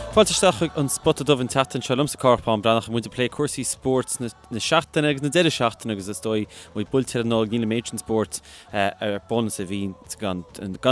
Fáilte isteach chuig an Spota Dubh an tseachtain seo liomsa Cárthach Bán Breathnach muid ag plé cúrsaí spóirt na seachtaine agus na deireadh seachtaine agus is dóigh muid buailte ar an Nollaig níl an méid sin spóirt ar bun is a bhí gan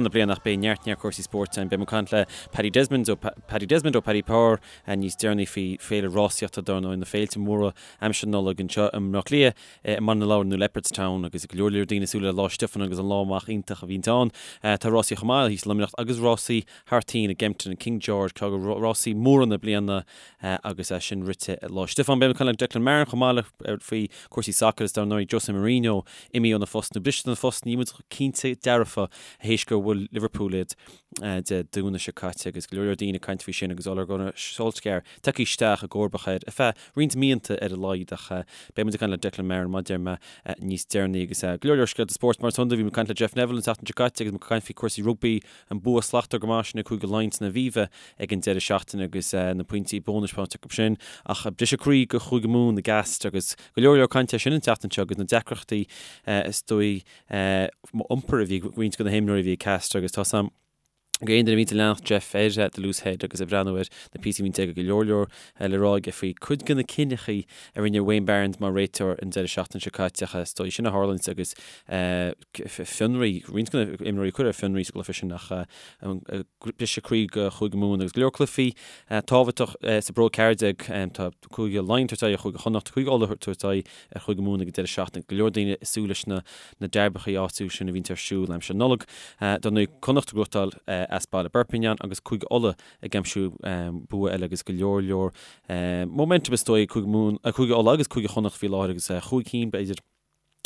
na bliana ach beidh neart neart cúrsaí spóirt ann. Beidh muid ag caint le Paddy Desmond ó Paddy Desmond ó Paddy Power níos deireanaí faoi féile rásaíochta dar ndóigh na féilte móra aimsir na Nollag anseo i mBleá Cliath i mBaile na Lobhar nó Leopardstown agus go leor leor daoine ag súil le Lá Stiofáin agus an lá amach iontach a bhíonns ann. Tá rásaí chomh maith thíos i Luimneach agus rásaí thar toinn i gKempton and King George, ceann de rásaí móra na bliana agus é sin rite Lá Stiofáin. Beidh muid ag caint le Declan Marron chomh maith le faoi cúrsaí sacair is dar ndóigh Jose Mourinho imithe óna phost nó briste óna phost níl muid cinnte dearfa théis gur bhuail Liverpool iad Dé Domhnaigh seo caite agus go leor leor daoine ag caint faoi sin agus Ole Gunnar Solskjaer tagtha isteach i gcomharbacht air ar feadh roinnt míonna ar a laghad ach beidh muid ag caint le Declan Marron mar a deir mé níos deireanaí agus go leor leor scéalta spóirt mar is iondúil. Bhí muid ag caint le Jeff Neville an tseachtain seo caite agus muid ag caint faoi cúrsaí rugbaí, an bua slachtmhar go maith sin ag Cúige Laighean san Aviva ag an deireadh seachtaine agus na pointí bónais faighte acu sin ach briseadh croí do Chúige Mumhan i gCastres agus go leor leor cainte air sin an tseachtain seo agus na deacrachtaí is dóigh iompair a bhí ag roinnt de na himreoirí a bhí ag Castres agus tá 's a'm go aon duine a bhíonns ag leanacht Jeff ar The Loose Head agus ag breathnú ar na píosaí a bhíonns aige go leor leor le rá aige faoi cuid de na cinneachaí a rinne Wayne Barnes mar réiteoir an deireadh seachtaine seo caite ach is dóigh sin a tharlaíonns agus fionraí, roinnt de na imreoirí a cuireadh ar fionraí sa gcluiche sin ach briseadh croí do Chúige Mumhan agus go leor cluichí tábhachtach sa bPro 14 tá Cúige Laighean ag tabhairt aghaidh ar Chúige Chonnacht, Cúige Uladh ag tabhairt aghaidh ar Chúige Mumhan ag an deireadh seachtaine. Go leor daoine ag súil leis na na dearbachaí áitiúil sin a bhíonns ar siúl aimsir Nollag. Dar ndóigh, Connacht ag gnóthachtáil as baile Perpignan agus Cúige Uladh ag aimsiú bua eile agus go leor leor momentum is dóigh ag Cúige Mumhan, Cúige Uladh agus Cúige Chonnacht faoi láthair agus chúig cinn b'fhéidir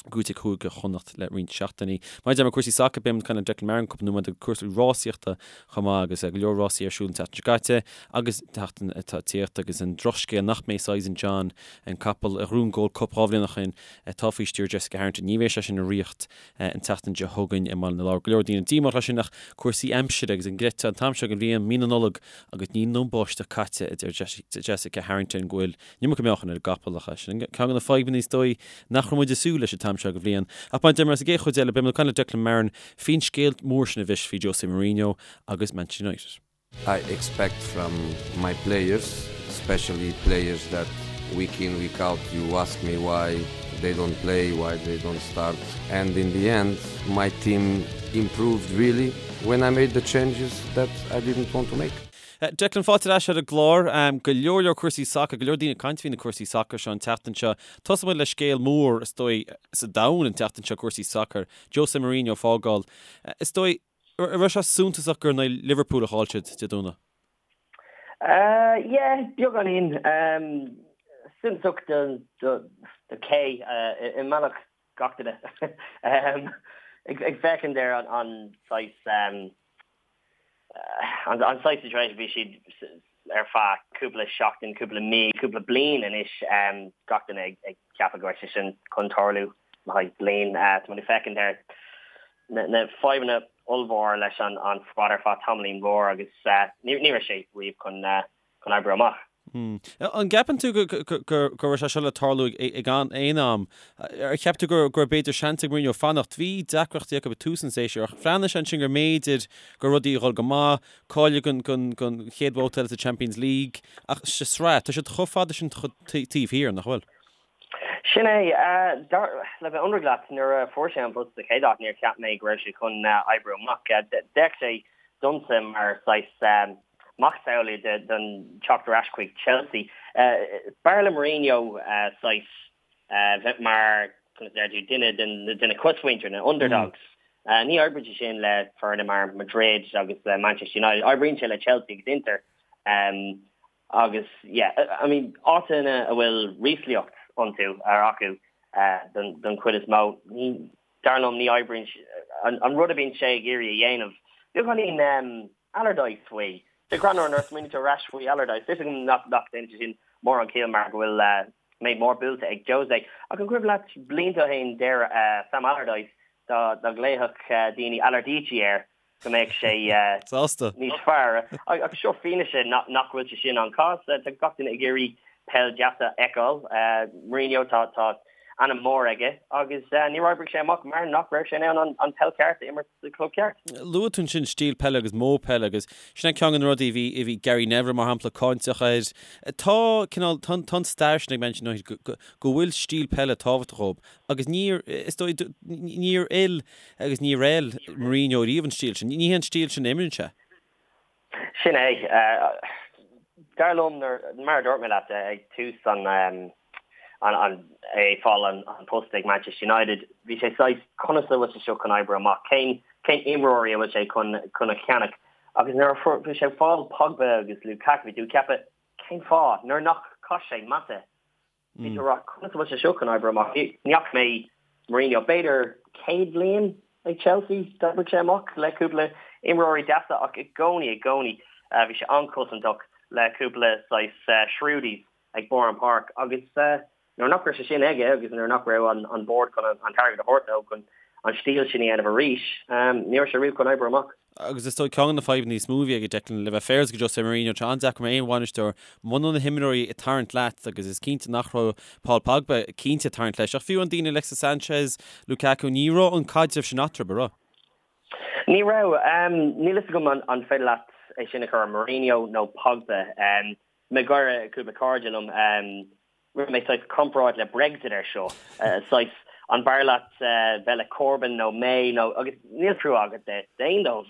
gnóthaithe ag Cúige Chonnacht le roinnt seachtainí. Mar a deir mé cúrsaí sacair, beidh muid ag caint le Declan Marron cúpla nóiméad agus cúrsaí rásaíochta chomh maith agus go leor rásaí ar siúl an tseachtain seo caite agus an tseachtain atá ag tíocht agus an drochscéal nach mbeidh Sizing John, an capall a ghnóthaigh an Gold Cup 2 bhliain ó shin, atá faoi stiúir Jessica Harrington. Ní bheidh sé sin i riocht an tseachtain seo chugainn i mBaile na Lobhar. Go leor daoine díomách leis sin ach cúrsaí aimsire agus an gcreidfeá an t-am seo den bhliain, mí na Nollag agus níl an báisteach caite, a deir Jessica Harrington go bhfuil an iomarca meáchain ar an gcapall ach sin ceann de na fadhbanna is dóigh nach raibh muid ag súil leis an t-am seo den bhliain. Ach mar a deir mé sa gcéad chuid eile beidh muid ag caint le Declan Marron faoin scéal mór sin a bhris faoi Jose Mourinho agus Manchester United. I expect from my players, especially players that week in, week out, you ask me why they don't play, why they don't start. And in the end, my team improved really when I made the changes that I didn't want to make. Declan, fáilte ar ais ar an gclár. Go leor leor cúrsaí sacair, go leor daoine ag caint faoi na cúrsaí sacair seo an tseachtain seo. Tosóidh muid le scéal mór, is dóigh, sa domhan an tseachtain seo, cúrsaí sacair. Jose Mourinho ag fágáil. Is dóigh, an raibh sé suntasach gur in aghaidh Liverpool a chaill siad Dé Domhnaigh? Yeah, beagáinín. Suntasach do cé i mbealach gach duine. Ag féachaint ar an saghas an saghas situation bhí siad ar feadh cúpla seachtain, cúpla mí, cúpla bliain anois, gach duine ag ceapadh go raibh sé sin chun tarlú le haghaidh bliain. Tá muid ag féachaint ar na fadhbanna ollmhór leis an squad ar feadh tamaillín mhór agus ní raibh sé riamh chun oibriú amach. An gceapann tú go raibh sé seo le tarlú ag aon am? Ar cheap tú go raibh b'fhéidir seans ag Mourinho fanacht? Bhí deacrachtaí acu ag tús an tséasúir ach bhreathnaigh sé ansin go mb'fhéidir go raibh rudaí ag dhul go maith, cáiliú don chéad bhabhta eile sa Champions League ach sa sraith, tá siad chomh fada sin taobh thiar, nach bhfuil? Sin é. Le bheith ionraic leat, nuair a fuair sé an post sa chéad áit, níor cheap mé go raibh sé chun oibriú amach. D'fhéach sé domsa mar saghas macasamhail den teacht ar ais chuig Chelsea. B'fhearr le Mourinho saghas bheith mar, conas a deir tú, duine de na cosmhuintir, na underdogs. Ní oibríonn sé sin le foirne mar Madrid agus le Manchester United. Oibríonn sé le Chelsea agus Inter. Agus yeah, I mean, áiteanna a bhfuil ríshliocht iontu, ar acu, don chuid is mó, ní, dar liom, ní oibríonn an rud a bhíonn sé ag iarraidh a dhéanamh. Beagáinín Allardyce faoi. Sé greannmhar nuair a smaoiníonn tú ar ais faoi Allardyce. Tá 'fhios agam nach ndéanann sé sin mórán ciall mar go bhfuil méid mór buailte ag Jose. Ach an cuimhin leat blianta ó shin deir Sam Allardyce dá nglaofadh daoine Allardyce air go mbeadh sé Sásta. níos fearr. Agus seo fianaise nach bhfuil sé sin an cás. Tá gach duine ag iarraidh peil deas a fheiceáil. Mourinho, tá tá. ainm mór aige agus níor oibrigh sé amach mar nach raibh sé in ann an peil ceart a imirt sa club ceart. Luaigh tú ansin stíl peile agus modh peile agus sin é ceann de na rudaí a bhí a bhí Gary Neville mar shampla cáinteach air. Tá cineál tá tá an stair sin ag Manchester United go go go bhfuil stíl peile tábhachtach dóibh agus níor is dóigh níor fheil agus níor fheil Mourinho riamh an stíl sin. Ní hé an stíl sin a imríonn sé. Sin é. Dar liom, mar a dúirt mé leat ag tús an é ag fáil an post ag Manchester United, bhí sé saghas, conas a bhfuil sé seo chun oibriú amach? Cén cén imreoirí a bhfuil sé chun chun a cheannach? Agus nuair a bhí sé ag fáil Pogba agus Lukaku, bhí tú ag ceapadh, cén fáth? Nuair nach chaith sé Mata, Bhí tú ag rá, conas a bhfuil sé seo chun oibriú amach? Ní fhaca mé Mourinho b'fhéidir céad bliain ag Chelsea, d'oibrigh sé amach le cúpla imreoirí deasa ach i gcónaí, i gcónaí bhí sé an-chosantach le cúpla saghas shrewdies ag barr an páirc agus nuair nach raibh sé sin aige agus nuair nach raibh an bord chun an t-airgead a thabhairt dó chun an stíl sin a dhéanamh arís, ní raibh sé riamh chun oibriú amach. Agus is dóigh ceann de na fadhbanna níos mó a bhí aige Declan, le bheith féaráilte go José Mourinho, tá an-deacair mar aon bhainisteoir muna bhfuil na himreoirí ag tarraingt leat agus is cinnte nach raibh Paul Pogba cinnte ag tarraingt leis ach fiú an daoine Alexis Sanchez, Lukaku, ní raibh an caidreamh sin eatarthu, an raibh? Ní raibh. Níl fhios agam an féidir leat é sin a chur ar Mourinho nó Pogba. Mé ag gáire cúpla cairde liom. Rinne mé saghas comparáid le Brexit ar seo, saghas an b'fhearr leat bheith le Corbyn nó May nó agus níl trua agat d'aon dóibh,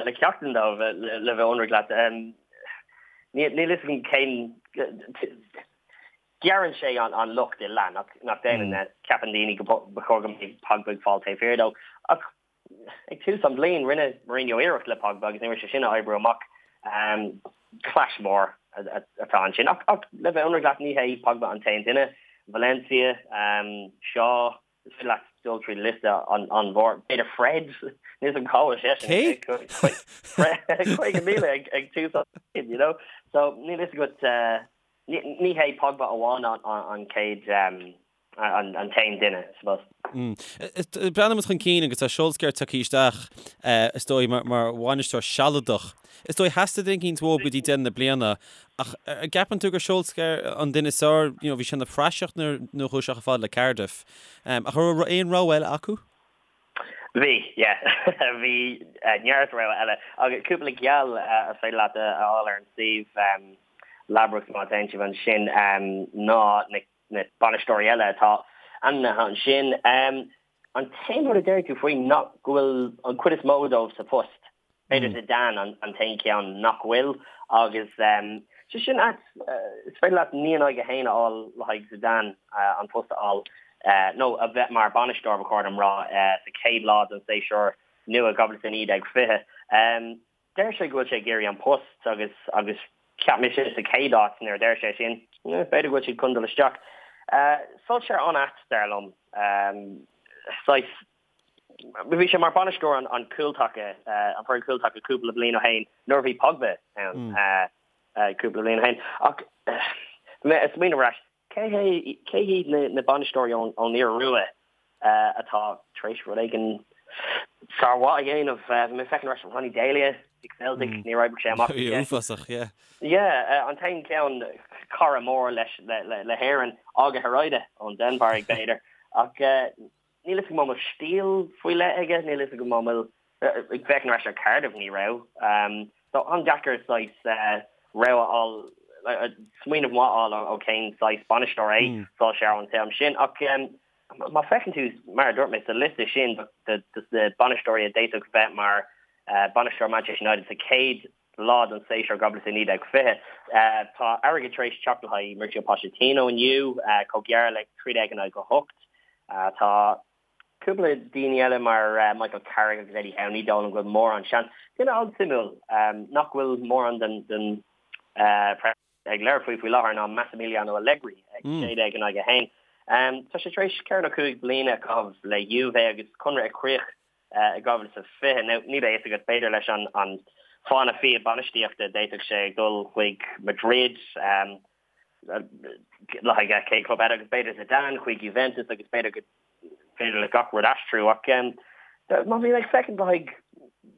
le ceachtar dóibh le bheith ionraic leat. Níl fhios agam cén gearrann sé an locht i leath nach déanann. Ceapann daoine go ba chóir go mbeadh Pogba ag fáil taobh thiar dó ach Ag tús an bhliain, rinne Mourinho iarracht le Pogba agus ní raibh sé sin ag oibriú amach. Clash mór atá ansin. Ach le bheith ionraic leat, ní hé Pogba an t-aon duine. Valencia, Shaw, is féidir leat dul trí liosta an-mhór. B'fhéidir Fred, níl fhios agam cá bhfuil seisean. Cé? Fred, 50,000 ag tús an bhliain, you know. So níl fhios agat, ní hé Pogba amháin an chéad an t-aon duine, I suppose. Breathnaíonn muid chun cinn agus tá Solskjaer tagtha isteach, is dóigh, mar bhainisteoir sealadach. Is dóigh, theastaigh duine eicínt uathu go dtí deireadh na bliana, ach an gceapann tú gur Solskjaer an duine is fearr? You know, bhí sé ina phraiseach nuair a chuaigh sé chomh fada le Cardiff. Ach an raibh aon rogha eile acu? Bhí, yeah. Bhí neart rogha eile. Agus cúpla geall is féidir leat a fháil ar an suíomh Ladbrokes má théann sibh ansin ná na na bainisteoirí eile atá ainmnithe ansin. An t-aon rud a déarfaidh tú faoi ná go bhfuil an chuid is mó dóibh sa phost. B'fhéidir Zidane an t-aon cheann nach bhfuil agus sé sin ait. Is féidir leat 9 in aghaidh 1 a fháil le haghaidh Zidane an post a fháil nó a bheith mar bhainisteoir ba chóir dom rá sa chéad lá den séasúr nua 2019 20. Deir sé go bhfuil sé ag iarraidh an post agus agus cheap mise sa chéad áit nuair a deir sé sin, b'fhéidir go bhfuil siad chun dul isteach. Solskjaer an-ait, dar liom. Saghas, bhí sé mar bainisteoir an an cúltaca, an foireann cúltaca cúpla bliain ó shin nuair a bhí Pogba ann cúpla bliain ó shin. Ach mé ag smaoineamh ar ais, Cé hé, cé hiad na bainisteoirí ón Iorua atá tar éis rud éigin sármhaith a dhéanamh? Bhí mé ag féachaint ar ais Ronny Deila ag Celtic, níor oibrigh sé amach. Bhí uafásach, yeah. Yeah, an t-aon cheann, cara mór leis, le hÉirinn, Åge Hareide ón Danmhairg, b'fhéidir. Ach níl fhios agam an bhfuil stíl faoi leith aige, níl fhios agam an bhfuil Ag féachaint ar ais ar Cardiff, ní raibh. So an-deacair saghas rogha a fháil, smaoineamh maith a fháil ó cén saghas bainisteoir é Solskjaer an t-am sin. Ach má féachann tú, mar a dúirt mé, sa liosta sin de na bainisteoirí a d'fhéadfadh bheith mar bainisteoir Manchester United sa chéad lá den séasúr 2019 20, tá airgead tar éis teacht le haghaidh Mauricio Pochettino inniu, chomh gearr le 13 in aghaidh 8. Tá Cúpla daoine eile mar Michael Carrick agus Eddie Howe, ní dóigh liom go bhfuil mórán seans. Duine an-suimiúil nach bhfuil mórán den press ag labhairt faoi faoi láthair ná Massimiliano Allegri ag 16 in aghaidh 1. Tá sé tar éis ceithre nó cúig bliana a chaitheamh le Juve agus conradh ag críoch i 2020. Now níl a fhios agat, b'fhéidir leis an fána fia bainistíochta d'fhéadfadh sé dul chuig Madrid, le haghaidh cén club eile agus b'fhéidir Zidane chuig Juventus agus b'fhéidir go féidir le gach rud aistriú ach má bhíonn ag féachaint le haghaidh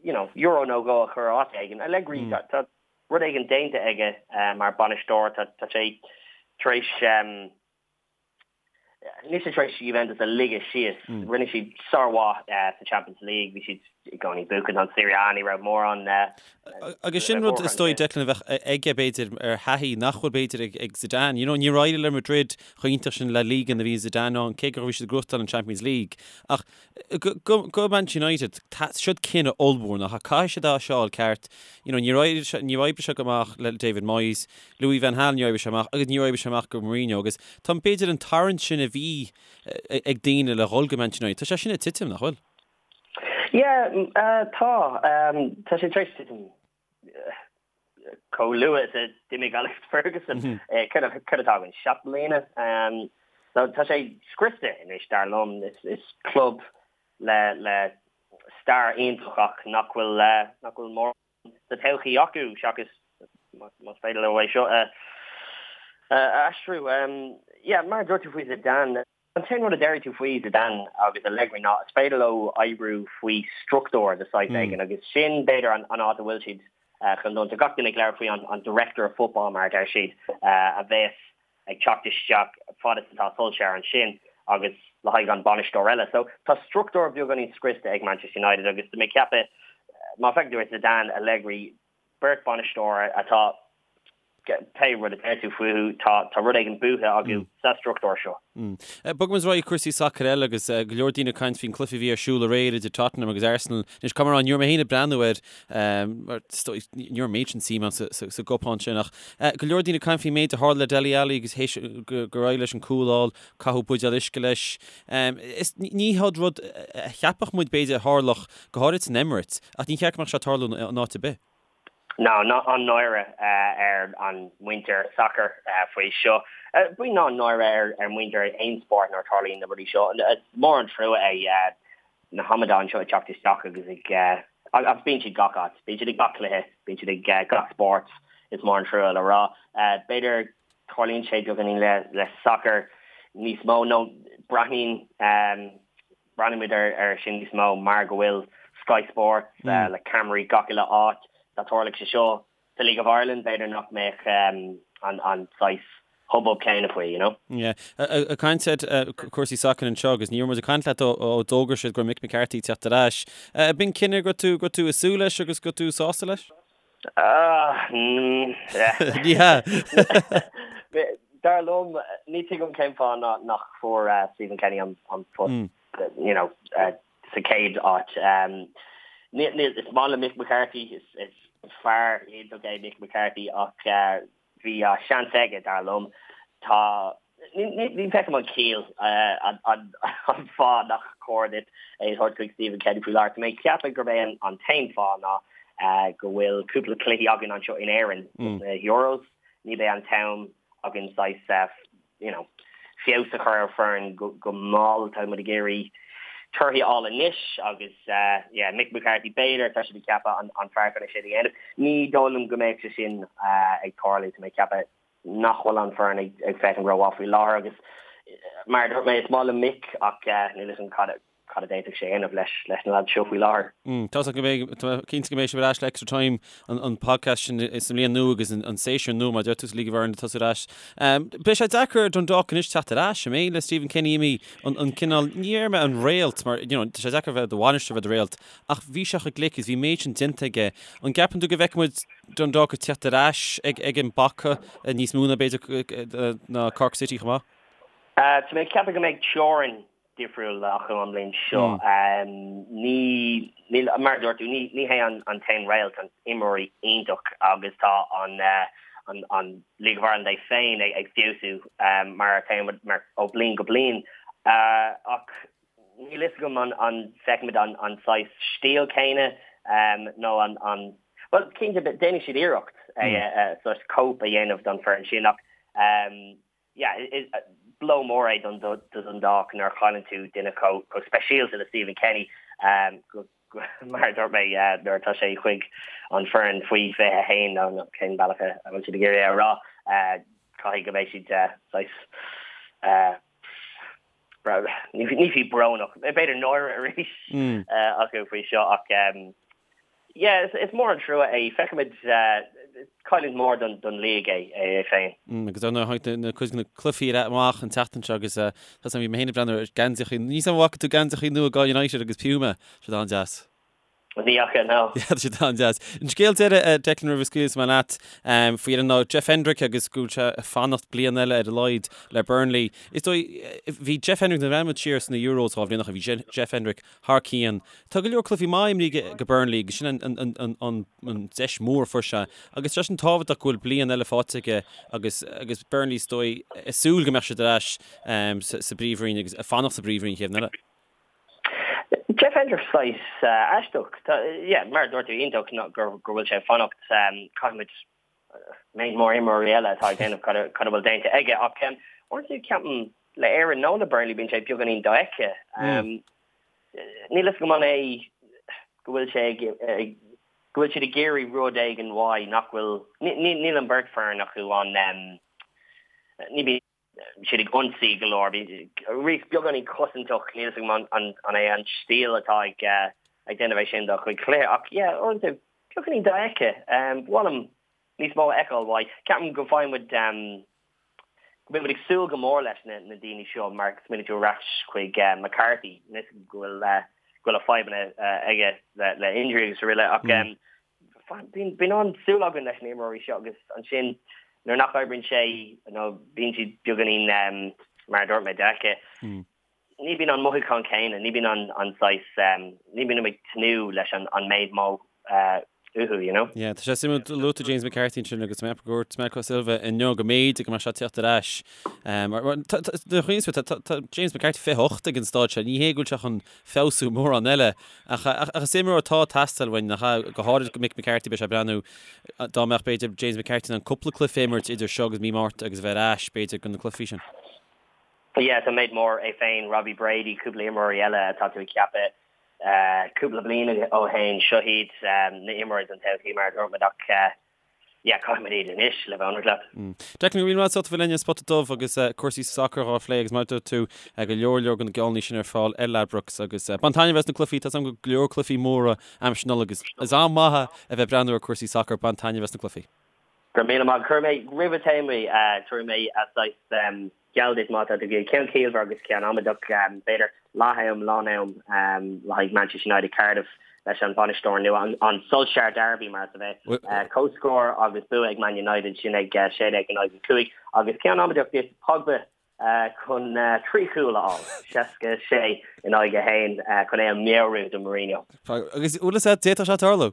you know euro nó dhó a chur áit éigin, Allegri tá rud éigin déanta aige mar bainisteoir, tá sé tar éis. Níl siad tar éis Juventus a ligeadh síos. Rinne siad sármhaith sa Champions League, bhí siad i gcónaí ag buachan an Serie A, ní raibh mórán. Agus sin rud is dóigh Declan a bheadh aige b'fhéidir ar thaithí nach bhfuil b'fhéidir ag Zidane. You know, níor éirigh le Madrid chomh iontach sin La Liga nuair a bhí Zidane ann, cé go raibh siad ag gnóthachtáil an Champions League. Ach go Manchester United, siod cinneadh ollmhór nach ea? Caithfidh siad é seo a fháil ceart. You know, níor oibrigh sé go maith le David Moyes, Louis van Gaal níor oibrigh sé amach agus níor oibrigh sé amach go Mourinho agus tá b'fhéidir an tarraingt sin a bhí ag daoine le dhul go Manchester United, tá sé sin ag titim, nach bhfuil? Yeah, tá. Tá sé tar éis titim chomh luath is a d'imigh Alex Ferguson. Céard atá againn? 7 mbliana? So tá sé scriosta anois, dar liom. Is club le stair iontach ach nach bhfuil nach bhfuil mórán sa todhchaí acu seachas más féidir leo é seo a aistriú. Yeah, mar a dúirt tú faoi Zidane, an t-aon rud a déarfaidh tú faoi Zidane agus Allegri ná is féidir leo oibriú faoi struchtúr de saghas éigin agus sin b'fhéidir an áit a bhfuil siad chun dul. Tá gach duine ag labhairt faoi an director of football mar a deir siad a bheas ag teacht isteach fad is atá Solskjaer ansin agus le haghaidh an bainisteoir eile. So tá struchtúr beagáinín scriosta ag Manchester United agus tá mé ag ceapadh má fheiceann tú ar Zidane, Allegri, beirt bainisteoir atá pé rud a deir tú fúthu, tá tá rud éigin buaite acu sa struchtúr seo. Bogaimis ar aghaidh cúrsaí sacair eile agus go leor daoine ag caint faoin cluiche a bhí ar siúl aréir idir Tottenham agus Arsenal. Anois caithfidh mé a rá, ní raibh mé féin ag breathnú air mar ní raibh an méid sin suim agam sa gcupán sin ach go leor daoine ag caint faoin méid a tharla le Dele Alli agus théis gur éirigh leis an cúl a fháil, caitheadh buidéal uisce leis. Is ní hiod rud a cheapfadh muid b'fhéidir a tharlódh go háirid san Emirates ach ní cheart go mbeadh sé ag tarlú in áit ar bith. Ná an-náire ar an muintir sacair faoi seo. Bíonn an-náire ar muintir aon spórt nuair a tarlaíonn na rudaí seo. Is mór an trua é na hamadáin seo ag teacht isteach agus ag agus bíonn siad gach áit. Bíonn siad ag gach cluiche, bíonn siad ag gach spórt, is mór an trua le rá. B'fhéidir tarlaíonn sé beagáinín le sacar níos mó nó breathnaíonn Breathnaímid air sin níos mó mar go bhfuil Sky Sports le ceamaraí gach uile áit. Dá dtarlódh sé seo sa League of Ireland, b'fhéidir nach mbeadh an saghas hubbub céanna faoi, you know. Yeah. Ag caint ar cúrsaí sacair anseo agus ní raibh muid ag caint leat ó d'fhógair siad go raibh Mick McCarthy ag teacht ar ais. B'in cinneadh go raibh tú go raibh tú ag súil leis agus go raibh tú sásta leis? Ní hea. Dar liom, ní tuigim cén fáth nach fuair Stephen Kenny an post you know, sa chéad áit. Is maith liom Mick McCarthy, is fear iontach é Mick McCarthy ach Bhí seans aige, dar liom. Tá, ní fheicim an chiall, an fáth nach cóir duit é a thabhairt chuig Stephen Kenny faoi láthair. Tá mé ag ceapadh gurb é an t-aon fáth ná go bhfuil cúpla cluichí againn anseo in Éirinn sna Euros. Ní bheidh an t-am againn saghas you know, feabhas a chur ar foireann go mall. Tá muid ag iarraidh torthaí a fháil anois agus yeah, Mick McCarthy b'fhéidir, tá siad ag ceapadh an fear chun é sin a dhéanamh. Ní dóigh liom go mbeadh sé sin ag tarlú, tá mé ag ceapadh nach bhfuil an foireann ag féachaint rómhaith faoi láthair agus mar a dúirt mé, is maith liom Mick ach níl fhios agam cad cad a d'fhéadfadh sé a dhéanamh leis leis na lads seo faoi láthair. Tá go mbeidh, tá mé cinnte go mbeidh sibh ar ais le Extra Time, an podcast sin sa mbliain nua agus an séasúr nua mar a deir tú sa League of Ireland ag tosú ar ais. Beidh sé deacair ar Dundalk anois teacht ar ais, an mbeidh, le Stephen Kenny imithe, an cineál, ní déarfaidh mé an réalt mar, you know, tá sé deacair bheith i do bhainisteoir bheith i do réalt ach bhí sé chomh glic agus bhí an méid sin déanta aige. An gceapann tú go bhfeicfidh muid Dundalk ag teacht ar ais ag ag an bpaca níos mó ná b'fhéidir ná Cork City chomh maith? Tá mé ag ceapadh go mbeidh teorainn difriúil acu an bhliain seo. Ní, níl, mar a dúirt tú, ní, ní hé an an t-aon réalt, an imreoirí iontach agus tá an an an League of Ireland é féin ag ag feabhsú mar atá mar ó bliain go bliain. Ach níl fhios agam an an bhfeicfimid an an saghas stíl céanna nó an an bhuel cinnte déanfaidh siad iarracht é saghas cóip a dhéanamh don foireann sin ach yeah, is blow mór é don Dundalk nuair a chailleann tú duine chomh speisialta le Stephen Kenny, mar a dúirt mé, nuair atá sé chuig an foireann faoi 21 nó cén bealach a bhfuil siad ag iarraidh é a rá, caithfidh go mbeidh siad saghas, ní fiú brónach, b'fhéidir náire arís acu faoi seo ach. Yeah, is mór an trua é. Feicfimid, cailliúint mhór don league é é féin. Agus ar ndóigh tháinig na cuid de na cluichí amach an tseachtain seo agus tá 's agam bhí mé féin ag breathnú ar geansaíochaí, níl 's agam an bhfaca tú geansaíochaí nua do United agus Puma, tá siad an-deas. Ní fhaca, no. Yeah, tá siad an-deas. An scéal deiridh, Declan, roimh a scaoilfidh mé leat, faoi dheireadh ná Jeff Hendrick agus go bhfuil sé ag fanacht bliain eile ar a laghad le Burnley. Is dóigh, bhí Jeff Hendrick, nuair a bhreathnaigh muid siar sna Euros 2 bhliain ó shin, bhí Jeff Hendrick thar cionn. Tá go leor cluichí maith imrithe aige do Burnley agus sin an deis mhór a fuair sé. Agus tá sé sin tábhachtach go bhfuil bliain eile faighte aige agus agus Burnley is dóigh ag súil go mbeadh siad ar ais sa bPríomhroinn agus ag fanacht sa bPríomhroinn an chéad bhliain eile. Jeff Hendrick saghas aisteach. Yeah, mar a dúirt tú iontach go bhfuil sé ag fanacht. Caithfimid méid mór imreoirí eile atá ag déanamh cad a bhfuil déanta aige ach uaireanta ceapaim le Éirinn nó le Burnley bíonn sé beagáinín dofheicthe. Níl fhios agam an é go bhfuil sé ag go bhfuil siad ag iarraidh rud éigin uaidh nach bhfuil níl an bheirt foireann acu an ní bhíonn siad ag ionsaí go leor. Bhí beagáinín cosantach, níl fhios agam an é an stíl atá ag déanamh é sin dá chuid cluiche ach yeah, uaireanta beagáinín dofheicthe. Ba mhaith liom níos mó a fheiceáil uaidh. Ceapaim go bhfaigheann muid, go mbíonn muid ag súil go mór leis na daoine seo mar smaoinigh tú ar ais chuig McCarthy, níl fhios agam go bhfuil go bhfuil a fadhbanna aige le injury agus araile ach Bíonn an-súil againn leis na imreoirí seo agus ansin nuair nach oibríonn sé nó bíonn siad beagáinín, mar a dúirt mé, dofheicthe, ní bíonn an mothúchán céanna, ní bíonn an saghas, ní bíonn ag tnúth leis an méid mó uathu, you know. Yeah, tá sé suimiúil, luaigh tú James McCarthy ansin agus mé ag dúirt Marco Silva inniu go mb'fhéidir go mbeadh sé ag teacht ar ais. Tá James McCarthy 28 ag an staid seo, ní hé go bhfuil sé chun feabhsú mórán eile. Ach is imreoir atá ag teastáil uainn, nach ea? Go háirid go Mick McCarthy, beidh sé ag breathnú, dá mbeadh, b'fhéidir, James McCarthy in ann cúpla cluiche a imirt idir seo agus mí Márta agus a bheith ar ais, b'fhéidir, do na cluichí sin. Yeah, tá méid mór, é féin, Robbie Brady, cúpla imreoirí eile atá tú ag ceapadh cúpla bliain ó shin, seo iad na imreoirí don todhchaí, mar a dúirt muid, ach yeah, caithfimid iad anois, le bheith ionraic leat. Declan, go raibh míle maith agat as ucht a bheith linn ar Spota Dubh agus cúrsaí sacair dhá phlé agus mar a dúirt tú, go leor leor de na geallúintí sin ar fáil ar Ladbrokes agus bain taitneamh as na cluichí, tá 's agam go leor cluichí móra aimsir Nollag agus is am maith é a bheith ag breathnú ar cúrsaí sacair, bain taitneamh as na cluichí. Go raibh míle maith. Cuirfidh mé roimh a théim, tabharfaidh mé saghas geall duit má tá tú ag ceann ciallmhar agus ceann amaideach, b'fhéidir leath-am, lán-am le haghaidh Manchester United Cardiff leis an bhainisteoir nua, an Solskjaer Derby mar is a bheith. Comhscór agus bua ag Man United, sin ag 16 in aghaidh 5. Agus ceann amaideach duit, Pogba chun 3 chúl a fháil, 66 in aghaidh 1 chun é a mheabhrú do Mourinho. Agus bhfuil fhios agat, d'fhéadfadh sé tarlú.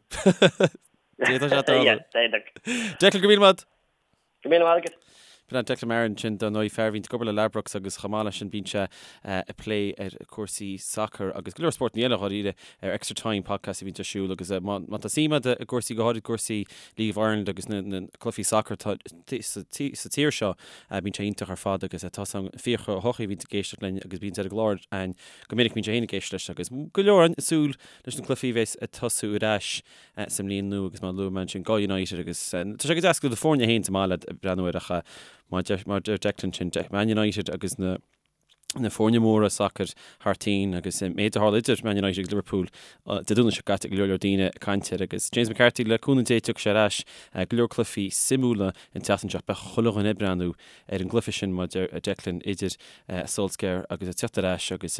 D'fhéadfadh sé tarlú. D'fhéadfadh. Declan, go raibh míle maith agat. Go raibh míle maith agat. B'in é Declan Marron ansin, dar ndóigh, fear a bhíonn ag obair le Ladbrokes agus chomh maith leis sin bíonn sé ag plé ar cúrsaí sacair agus go leor spórtanna eile dháiríre ar Extra Time podcast a bhíonn ar siúl agus má tá suim agat i gcúrsaí, go háirid cúrsaí League of Ireland agus na cluichí sacair atá sa tír seo, bíonn sé iontach ar fad agus tá 's agam Fiachra Ó hEochaidh a bhíonn ag éisteacht linn agus bíonn ar an gclár againn go minic bíonn sé féin ag éisteacht leis agus go leor ag súil leis na cluichí a bheas ag tosú ar ais sa mbliain nua agus mar a luaigh mé ansin do United agus tá sé go deas go bhfuil do foirne féin sa mbaile ag breathnú air ach mar a deir Declan sin Man United agus na na foirne móra sacair thar toinn agus an méid a tharla idir Man United agus Liverpool Dé Domhnaigh seo caite go leor leor daoine ag caint air agus James McCarthy le cúnamh Dé tiocfaidh sé ar ais go leor cluichí suimiúla an tseachtain seo beidh chuile dhuine ag breathnú ar an gcluiche sin mar a deir Declan idir Solskjaer agus ag teacht ar ais agus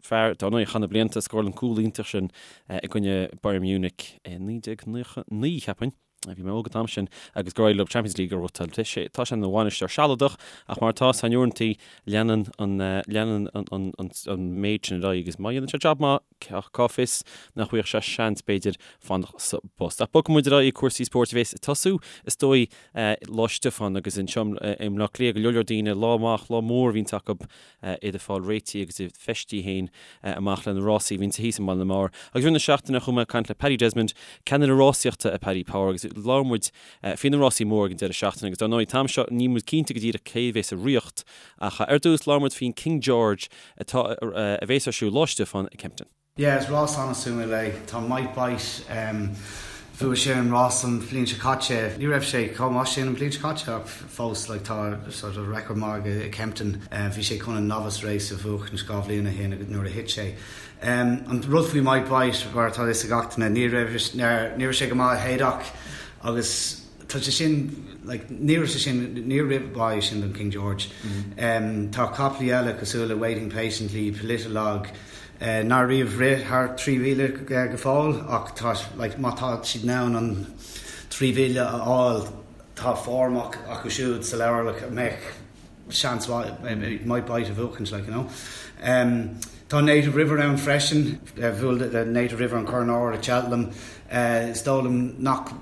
fear dar ndóigh a chaith na blianta a scóráil an cúl iontach sin i gcoinne Bayern Munich i 1999, cheapfainn. Bhí mé óg an t-am sin agus gur éirigh leo Champions League a ghnóthachtáil. Tá sé ina bhainisteoir sealadach ach mar atá san uaireanta leanann an leanann an an méid sin ar aghaidh agus má dhéanann sé jab maith cá fios nach bhfaigheadh sé seans b'fhéidir fanacht sa bpost. Ach bogfaidh muid ar aghaidh ag cúrsaí spóirt a bhéas ag tosú is dóigh Lá Stiofáin agus anseo i mBleá Cliath go leor leor daoine lá amach, lá mór a bhíonns acu iad ag fáil réitithe agus iad feistithe féin amach le na rásaí a bhíonns thíos i mBaile na mBodhar. Agus i rith na seachtaine chuaigh mé ag caint le Paddy Desmond, ceannaire rásaíochta i Paddy Power agus labhair muid faoi na rásaí móra ag an deireadh seachtaine agus dar ndóigh an t-am seo níl muid cinnte go díreach cé a bhéas sa riocht ach ar dtús labhair muid faoin King George atá a bhéas ar siúl Lá Stiofáin i Kempton. Yeah, is rás an-suimiúil é. Tá Might Bite. Bhuaigh sé an rás an bhliain seo caite. Ní raibh sé chomh maith sin an bhliain seo caite ach fós like tá sort of record maith aige i Kempton. Bhí sé chun an novice race a bhuachaint 2 bhliain ó shin nuair a thit sé. An rud faoi Might Bite, mar atá a fhios ag gach duine, ní raibh ní raibh sé go maith i Haydock agus tá sé sin like ní raibh sé sin níor rith mhaith é sin don King George. Tá caplaí eile cosúil le Waiting Patiently, Politologue, nár riamh rith thar 3,000 go fóill ach tá like má tá siad in ann an 3,000 a fháil tá form acu siúd sa leabhar like a mbeadh seans mhaith Might Bite a bhuachaint like you know. Tá Native River ann freisin, bhuail Native River an Corn Óir i Cheltenham. Is dóigh liom nach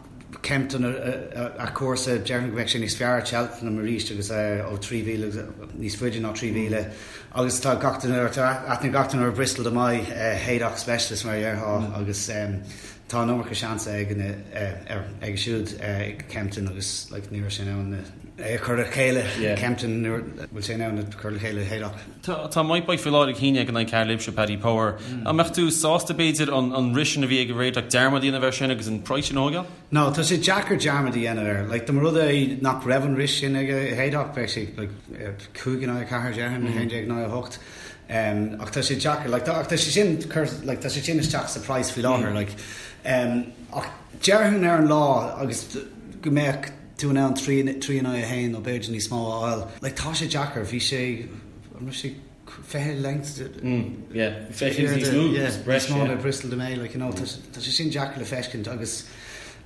Kempton a chúrsa, déarfainn go mbeadh sé níos fearr i Cheltenham arís agus ó 3,000 níos faide ná 3,000 agus tá gach duine, tá aithne gach duine ar Bristol de Mai, Haydock specialist mar a déarfá agus tá an iomarca seans aige aige siúd ag Kempton agus like ní raibh sé in ann é a chur le chéile i Kempton nuair bhfuil sé in ann a chur le chéile i Haydock. Tá Might Bite faoi láthair ag shíneadh in aghaidh cara libhse, Paddy Power. An mbeadh tú sásta, b'fhéidir, an rith sin a bhí aige i Haydock, dearmad a dhéanamh air sin agus an praghas sin a thógáil? No, tá sé deacair dearmad a dhéanamh air. Like, dá mba rud é nach raibh an rith sin aige i Haydock, bheadh sé like, 5 in aghaidh 4, déarfainn, 11 in aghaidh 8. Um, ach tá sé deacair, like, ach tá sé sin, like, tá sé sin isteach sa praghas faoi láthair, like, um, ach déarfainn ar an lá agus go mbeadh tú in ann 3 in aghaidh 1 nó b'fhéidir níos mó a fháil. Like tá sé deacair, bhí sé, an raibh sé 20 length? Yeah, 20 níos mó, níos mó ná Bristol de Mai, like you know, tá sé sin deacair le feiscint agus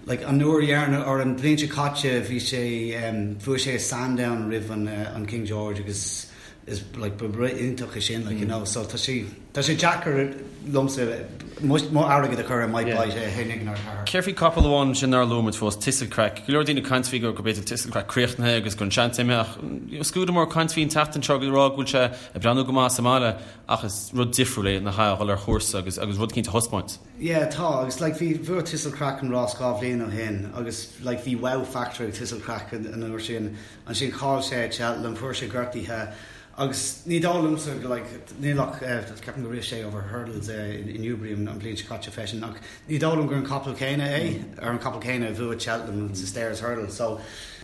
like an uair dheireanach or an bhliain seo caite bhí sé, bhuaigh sé i Sandown roimh an King George agus is like ba rith iontach é sin like you know so tá sé tá sé deacair liomsa mo mo airgead a chur ar Might Bite é féin ag an ardchathair. Céard faoi capall amháin ansin nár luaigh muid fós, Thistlecrack. Go leor daoine ag caint faoi go b'fhéidir Thistlecrack críochnaithe agus go an seans imithe ach scuadar mór ag caint faoi an tseachtain seo ag rá go bhfuil sé ag breathnú go maith sa mbaile ach is rud difriúil é nach ea a dhul ar chúrsa agus agus rud eicínt a thaispeáint. Yeah tá agus like bhí bhuaigh Thistlecrack an rás 2 bhliain ó shin agus like bhí wow factor ag Thistlecrack an uair sin Ansin chaill sé ag Cheltenham, fuair sé gortaithe agus ní dóigh liomsa go like níl ach ceapaim gur rith sé over hurdles i Newbury an bhliain seo caite freisin ach ní dóigh liom gur an capall céanna é ar an capall céanna a bhuaigh Cheltenham sa Stayers Hurdle. So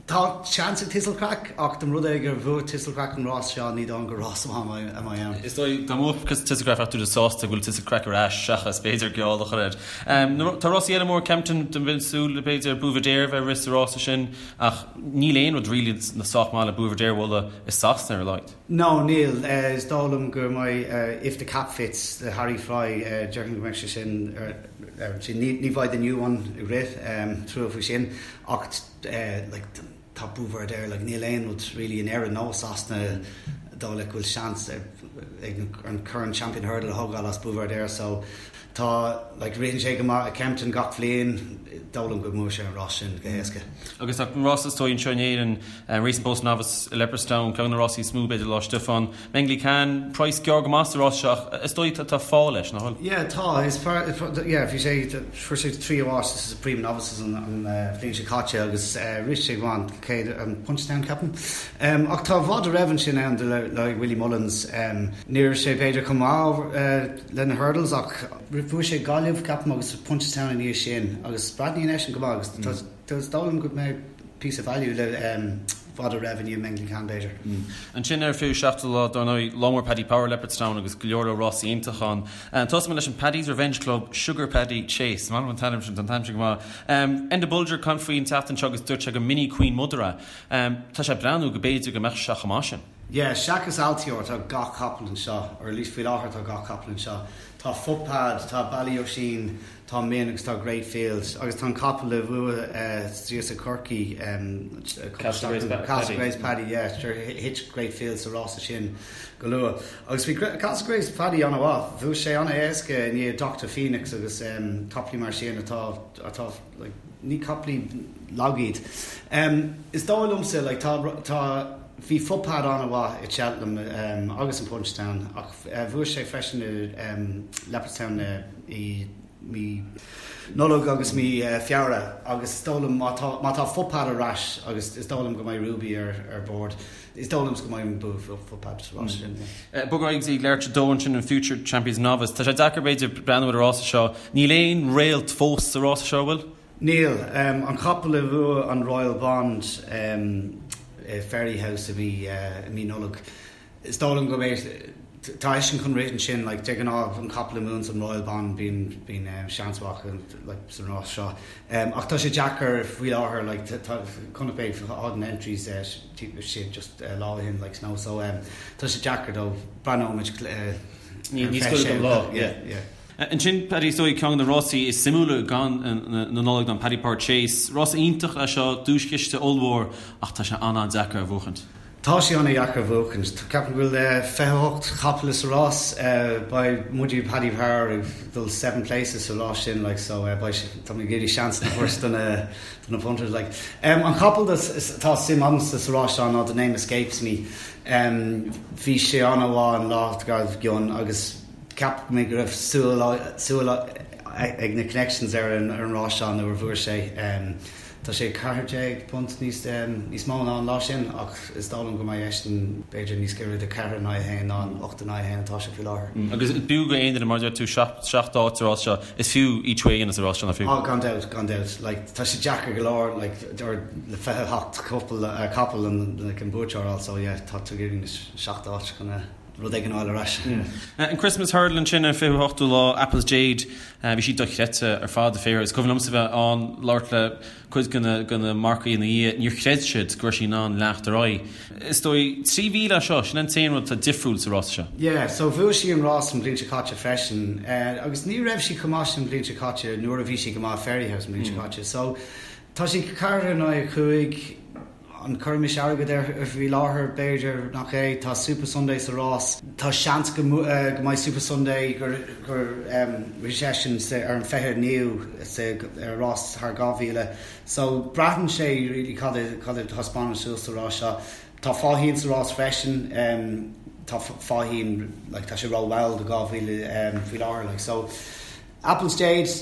tá seans ag Thistlecrack ach dá mba rud é gur bhuaigh Thistlecrack an rás seo ní dóigh liom gur rás maith a mbeidh ann. Is dóigh dá mbuafadh Thistlecrack bheadh tú sásta go bhfuil Thistlecrack ar ais seachas b'fhéidir geall a chur air. Tá rásaí eile mór Kempton bheinn ag súil b'fhéidir Buveur d'Air a bheith ag rith sa rása sin Ach níl aon rud really sách maith le Buveur d'Air a bhualadh i Sasana ar a laghad. No, níl. Is dóigh liom go mbeidh If The Cap Fits le Harry Fry, déarfainn go mbeidh sé sin ar sin. Ní bheidh The New One ag rith, trua faoi sin. Ach like tá Buveur d'Air, like níl aon rud really in Éirinn nó i Sasana dóigh leat go bhfuil seans ag an Corn Champion Hurdle a thógáil as Buveur d'Air so Tá, like, ritheann sé go maith i Kempton gach bhliain, dóigh liom go mbuafaidh sé an rás sin go héasca. Agus tá an rás is dóigh anseo in Éirinn, Racing Post Novice i Leopardstown, ceann de na rásaí is mó b'fhéidir Lá Stiofáin. Mengli Khan, praghas gearr go maith sa rás seo ach is dóigh tá fáth leis, nach bhfuil? Yeah, tá, is fearr, yeah, bhí sé, fuair sé tríú áit sa Supreme Novices an bhliain seo caite agus rith sé go maith an chéad, an Punchestown ceapaim. Ach tá Votre Rêve ansin ann le Willie Mullins, ní raibh sé b'fhéidir chomh maith, le na hurdles ach bhuaigh sé Gaillimh, ceapaim, agus Punchestown ina dhiaidh sin agus breathnaíonn eisean go maith agus tá is dóigh liom go mbeidh píosa value le Votre Rêve i ndiaidh Mengli Khan b'fhéidir. Ansin ar an 27ú lá, dar ndóigh, lá mór Paddy Power, Leopardstown agus go leor leor rásaí iontacha ann. Tosóidh mé leis an Paddy's Revenge Club Sugar Paddy Chase. Is maith liom an t-ainm sin, tá an t-ainm sin go maith. Enda Bolger ag caint faoi an tseachtain seo agus dúirt sé gur mini Queen Mother é. Tá sé ag breathnú go b'fhéidir go mbeadh sé chomh maith sin. Yeah, seachas Altior tá gach capall anseo, or at least faoi láthair tá gach capall anseo. Tá Footpad, tá Ballyoisín, tá Min agus tá Great Fields agus tá an capall a bhuaigh thíos i Corcaigh, Castlegrace Paddy, yeah, sure, thit Great Fields sa rása sin go luath. Agus bhí Castlegrace Paddy an-mhaith, bhuaigh sé an-éasca i ndiaidh Doctor Phoenix agus caplaí mar sin atá, atá, like, ní caplaí lag iad. Is dóigh liomsa, like, tá, tá, Bhí Footpad an-mhaith i Cheltenham agus in Punchestown ach bhuaigh sé freisin i Leopardstown i mí Nollag agus mí Feabhra agus is dóigh liom má tá má tá Footpad ar ais agus is dóigh liom go mbeidh Ruby ar ar bord, is dóigh liomsa go mbeidh an bua ag Footpad sa rás sin. Bog ar aghaidh go dtí Leitrim 2 ansin an Future Champions Novice. Tá sé deacair b'fhéidir breathnú ar an rása seo. Níl aon réalt fós sa rása seo, an bhfuil? Níl. An capall a bhuaigh an Royal Bond i Fairyhouse i mí Nollag, is dóigh liom go mbeidh, tá eisean chun rith ansin, like, de ghnáth an capall a mbuann an Royal Bond bíonn, bíonn seans mhaith acu, like, san rás seo. Ach tá sé deacair faoi láthair, like, tá, chonaic mé na entries sin just lá ó shin, like, snow, so tá sé deacair though, breathnóimid ar an 26ú. Lá, yeah, yeah. Ansin, Paddy, is dóigh, ceann de na rásaí is suimiúla den na Nollag ná an Paddy Power Chase. Rás iontach é seo, duaischiste ollmhór, ach tá sé an-an-deacair a bhuachaint. Tá sé an-dheacair a bhuachaint. Ceapaim go bhfuil 28 chapall sa rás. Beidh muide Paddy Power ag dul seven places sa rás sin like so beidh sé, tá mé ag iarraidh seans a thabhairt do na do na punters like. An capall atá suim agamsa sa rás seo ná The Name Escapes Me. Bhí sé an-mhaith an lá dár gcionn agus Cheap mé go raibh súil súil ag na connections ar an ar an rás seo nuair a bhuaigh sé. Tá sé £14 níos níos mó ná an lá sin ach is dóigh liom go mbeidh eisean b'fhéidir níos giorra do 4 in aghaidh 1 ná an 8 in aghaidh 1 atá sé faoi láthair. Agus b'fhiú go aon duine, mar a deir tú, seacht áit sa rás seo, is fiú each way a dhéanamh sa rás seo, nach fiú? Á gan dabht, gan dabht. Like tá sé deacair go leor like or le 28 cupla capall an like an buaiteoir a fháil so yeah tá tú ag iarraidh na seacht áit chun a rud éigin a fháil ar ais. An Christmas Hurdle ansin ar an 28ú lá, Apple's Jade, bhí sí dochreidte ar fad, a Is cuimhin liomsa bheith ann, labhairt le cuid de na marcaigh ina dhiaidh, níor chreid siad go raibh sí in ann leanacht ar aghaidh. Is dóigh, 3,000 é seo, sin an t-aon rud atá difriúil sa rása seo. Yeah, so bhuaigh sí an rás an bhliain seo caite freisin, agus ní raibh sí chomh maith sin an bhliain seo caite nuair a bhí sí go maith Fairyhouse an bhliain seo caite. So tá sí 4 in aghaidh 5, An gcuirfimis airgead air faoi láthair? B'fhéidir nach é. Tá Supasundae sa rás. Tá seans go mbeidh Supasundae gur rith seisean ar an 29ú sa rás thar 2,000. So braitheann sé really cad a thaispeánann suas sa rás seo. Tá Faugheen sa rás freisin. Tá Faugheen like tá sé rómhall do 2,000 faoi láthair like so Apple's Jade.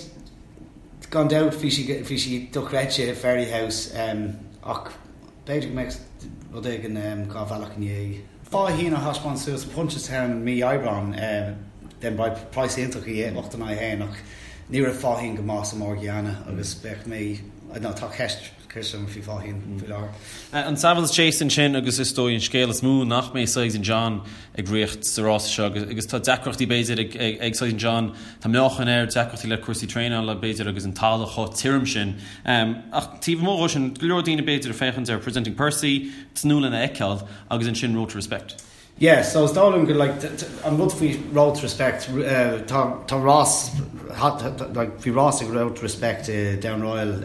Gan dabht bhí sí bhí sí dochreidte i Fairyhouse ach b'fhéidir go mbeadh rud éigin dhá bhealach i ndiaidh. Faugheen a thaispeáin suas i Punchestown mí Aibreáin then beidh praghas iontach í 8 in aghaidh 1 ach ní raibh Faugheen go maith sa Morgiana agus bheadh mé I don't know tá ceist ceist agam faoi Faugheen faoi láthair. An Savills Chase ansin agus is dóigh an scéal is mó nach mbeidh Sizing John ag rith sa rása seo agus tá deacrachtaí b'fhéidir ag Sizing John, tá meáchan air, deacrachtaí le cúrsaí traenála b'fhéidir agus an talamh chomh tirim sin. Ach taobh amuigh dhó sin, go leor daoine b'fhéidir ag féachaint ar Presenting Percy, tnúth lena fheiceáil agus ansin Road to Respect. Yeah, so is dóigh liom go like an rud faoi Road to Respect, tá tá rás like bhí rás ag Road to Respect i Down Royal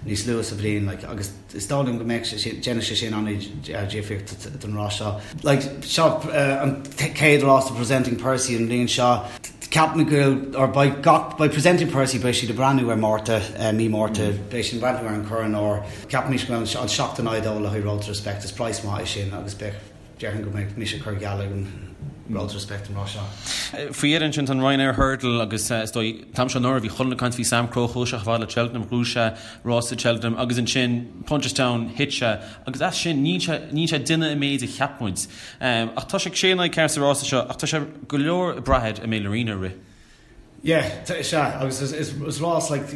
níos luaithe sa bhliain like agus is dóigh liom go mbeidh sé sin déanfaidh sé sin an-difríocht don rás seo. Like seo an chéad rás do Presenting Percy an bhliain seo. Ceapaim go bhfuil or beidh gach beidh Presenting Percy beidh siad ag breathnú ar Márta mí Márta beidh siad ag breathnú ar an Corn Óir. Ceapaimid go bhfuil an 7 in aghaidh 2 le haghaidh Road to Respect is praghas maith é sin agus beidh Déarfainn go mbeidh mise ag cur geall ar an Road to Respect an rás seo. Faoi dheireadh ansin tá an Ryanair Hurdle agus is dóigh an t-am seo anuraidh bhí chuile dhuine ag caint faoi Samcro, chuaigh sé chomh fada le Cheltenham, ghnóthaigh sé rás i Cheltenham agus ansin Punchestown thit sé agus as sin níl sé níl sé ag déanamh an méid a cheap muid. Ach tá sé ag sé in aghaidh 4 sa rása seo ach tá sé go leor ag brath air an mbeidh Laurina ag rith. Yeah, sea, agus is rás like,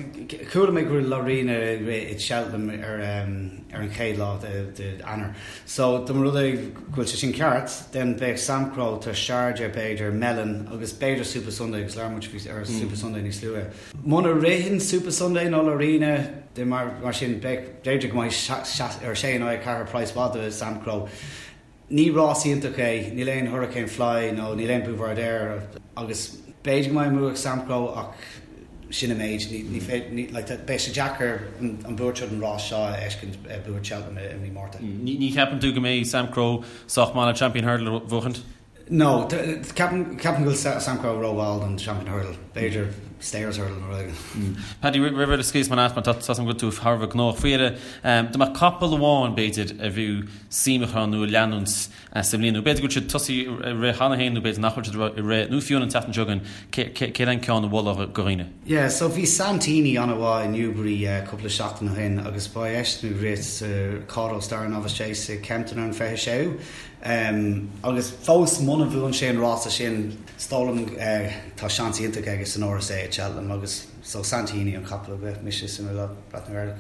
chuala mé go bhfuil Laurina ag rith i Cheltenham ar ar an chéad lá de Eanáir. So dá mba rud é go bhfuil sé sin ceart, then beidh Samcro, tá Sharjah b'fhéidir, Melon agus b'fhéidir Supasundae agus labhair muid faoi ar Supasundae níos luaithe. Muna ritheann Supasundae nó Laurina, then mar mar sin beidh b'fhéidir go mbeidh ar sé in aghaidh 4 praghas mhaith do Samcro. Ní rás iontach é, níl aon Hurricane Fly nó níl aon Buveur d'Air agus b'fhéidir go mbeidh an bua ag Samcro ach sin an méid. Ní féidir, like, beidh sé deacair an buaiteoir den rás seo a fheiscint bua Cheltenham i mí Márta. Ní cheapann tú go mbeidh Samcro sách maith le Champion Hurdle a bhuachaint? No, ceapaim go bhfuil Samcro rómhall don Champion Hurdle. B'fhéidir Stayers Hurdle nó rud éigin. Paddy, roimh a scaoilfidh mé leat mar tá a fhios agam go bhfuil tú thar a bheith gnóthach. Faoi dheireadh, dá mbeadh capall amháin, b'fhéidir, a bhfiú suim a chur ann nó a leanúint sa mbliain, nó b'fhéidir go bhfuil siad tosaithe ag rith cheana féin nó b'fhéidir nach bhfuil siad ag rith, nó fiú an tseachtain seo chugainn, céard é an ceann a mholfá do dhaoine? Yeah, so bhí Santini an-mhaith i Newbury cúpla seachtain ó shin agus beidh eisean ag rith sa Kauto Star Novice Chase i Kempton ar an 26ú. Agus fós muna. Muna bhuann sé an rása sin, is dóigh liom tá seans iontach aige san RSA i Cheltenham agus so Santini an capall a bheadh mise suimiúil ag breathnú air.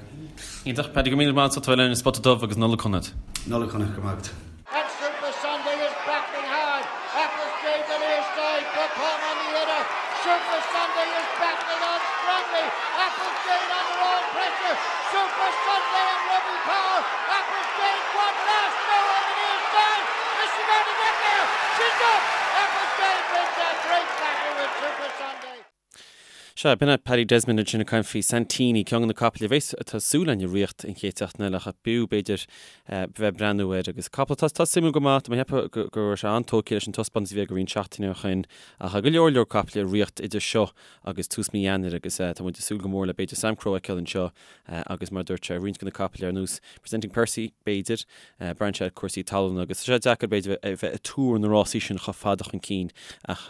Iontach, Paddy, go raibh míle maith agat as ucht a bheith linn ar Spota Dubh agus Nollaig Shona duit. Nollaig Shona, go raibh maith agat. And Super Sunday is battling hard. Apple's Jade the near side. Propon on the other. Super Sunday is battling on strongly. Apple's Jade under all pressure. Super Sunday and Robbie Power. Apple's Jade one last go on the near side. Is she going to get there? She's up. Apple's Jade wins that great battle with Super Sunday. Sea, b'in é Paddy Desmond ansin ag caint faoi Santini, ceann de na capaill a bheas tá súil againn i riocht an chéad seachtain eile ach b'fhiú, b'fhéidir, bheith ag breathnú air agus capall atá tá suimiúil go maith, tá mé ag ceapadh go go raibh sé an-tógtha leis an taispeántas a bhí aige roinnt seachtainí ó shin ach go leor leor capaill i riocht idir seo agus tús mí Eanáir agus tá muid ag súil go mór le b'fhéidir Samcro a fheiceáil anseo agus mar a dúirt sé roinnt de na capaill ar nós Presenting Percy b'fhéidir, braitheann sé ar cúrsaí talún agus tá sé deacair b'fhéidir a bheith ag tuar na rásaí sin chomh fada chun cinn ach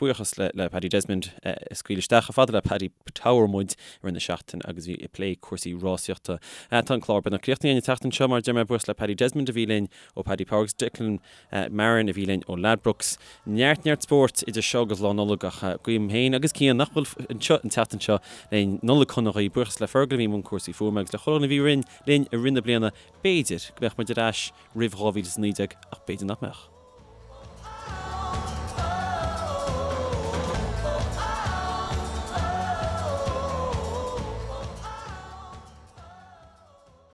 Buíochas le Paddy Desmond a scaoil isteach chomh fada le Paddy Power muid i rith na seachtaine agus bhí ag plé cúrsaí rásaíochta. Tá an clár beagnach críochnaithe an tseachtain seo mar a deir mé buíochas le Paddy Desmond a bhí linn ó Paddy Power agus Declan Marron a bhí linn ó Ladbrokes. Neart neart spóirt idir seo agus Lá Nollag ach guím féin agus Cian nach bhfuil anseo an tseachtain seo linn Nollaig shona dhaoibh. Buíochas le Fergal a bhí i mbun cúrsaí fuaime agus le chuile dhuine a bhí linn i rith na bliana. B'fhéidir go mbeadh muid ar ais roimh 2019 ach b'fhéidir nach mbeadh.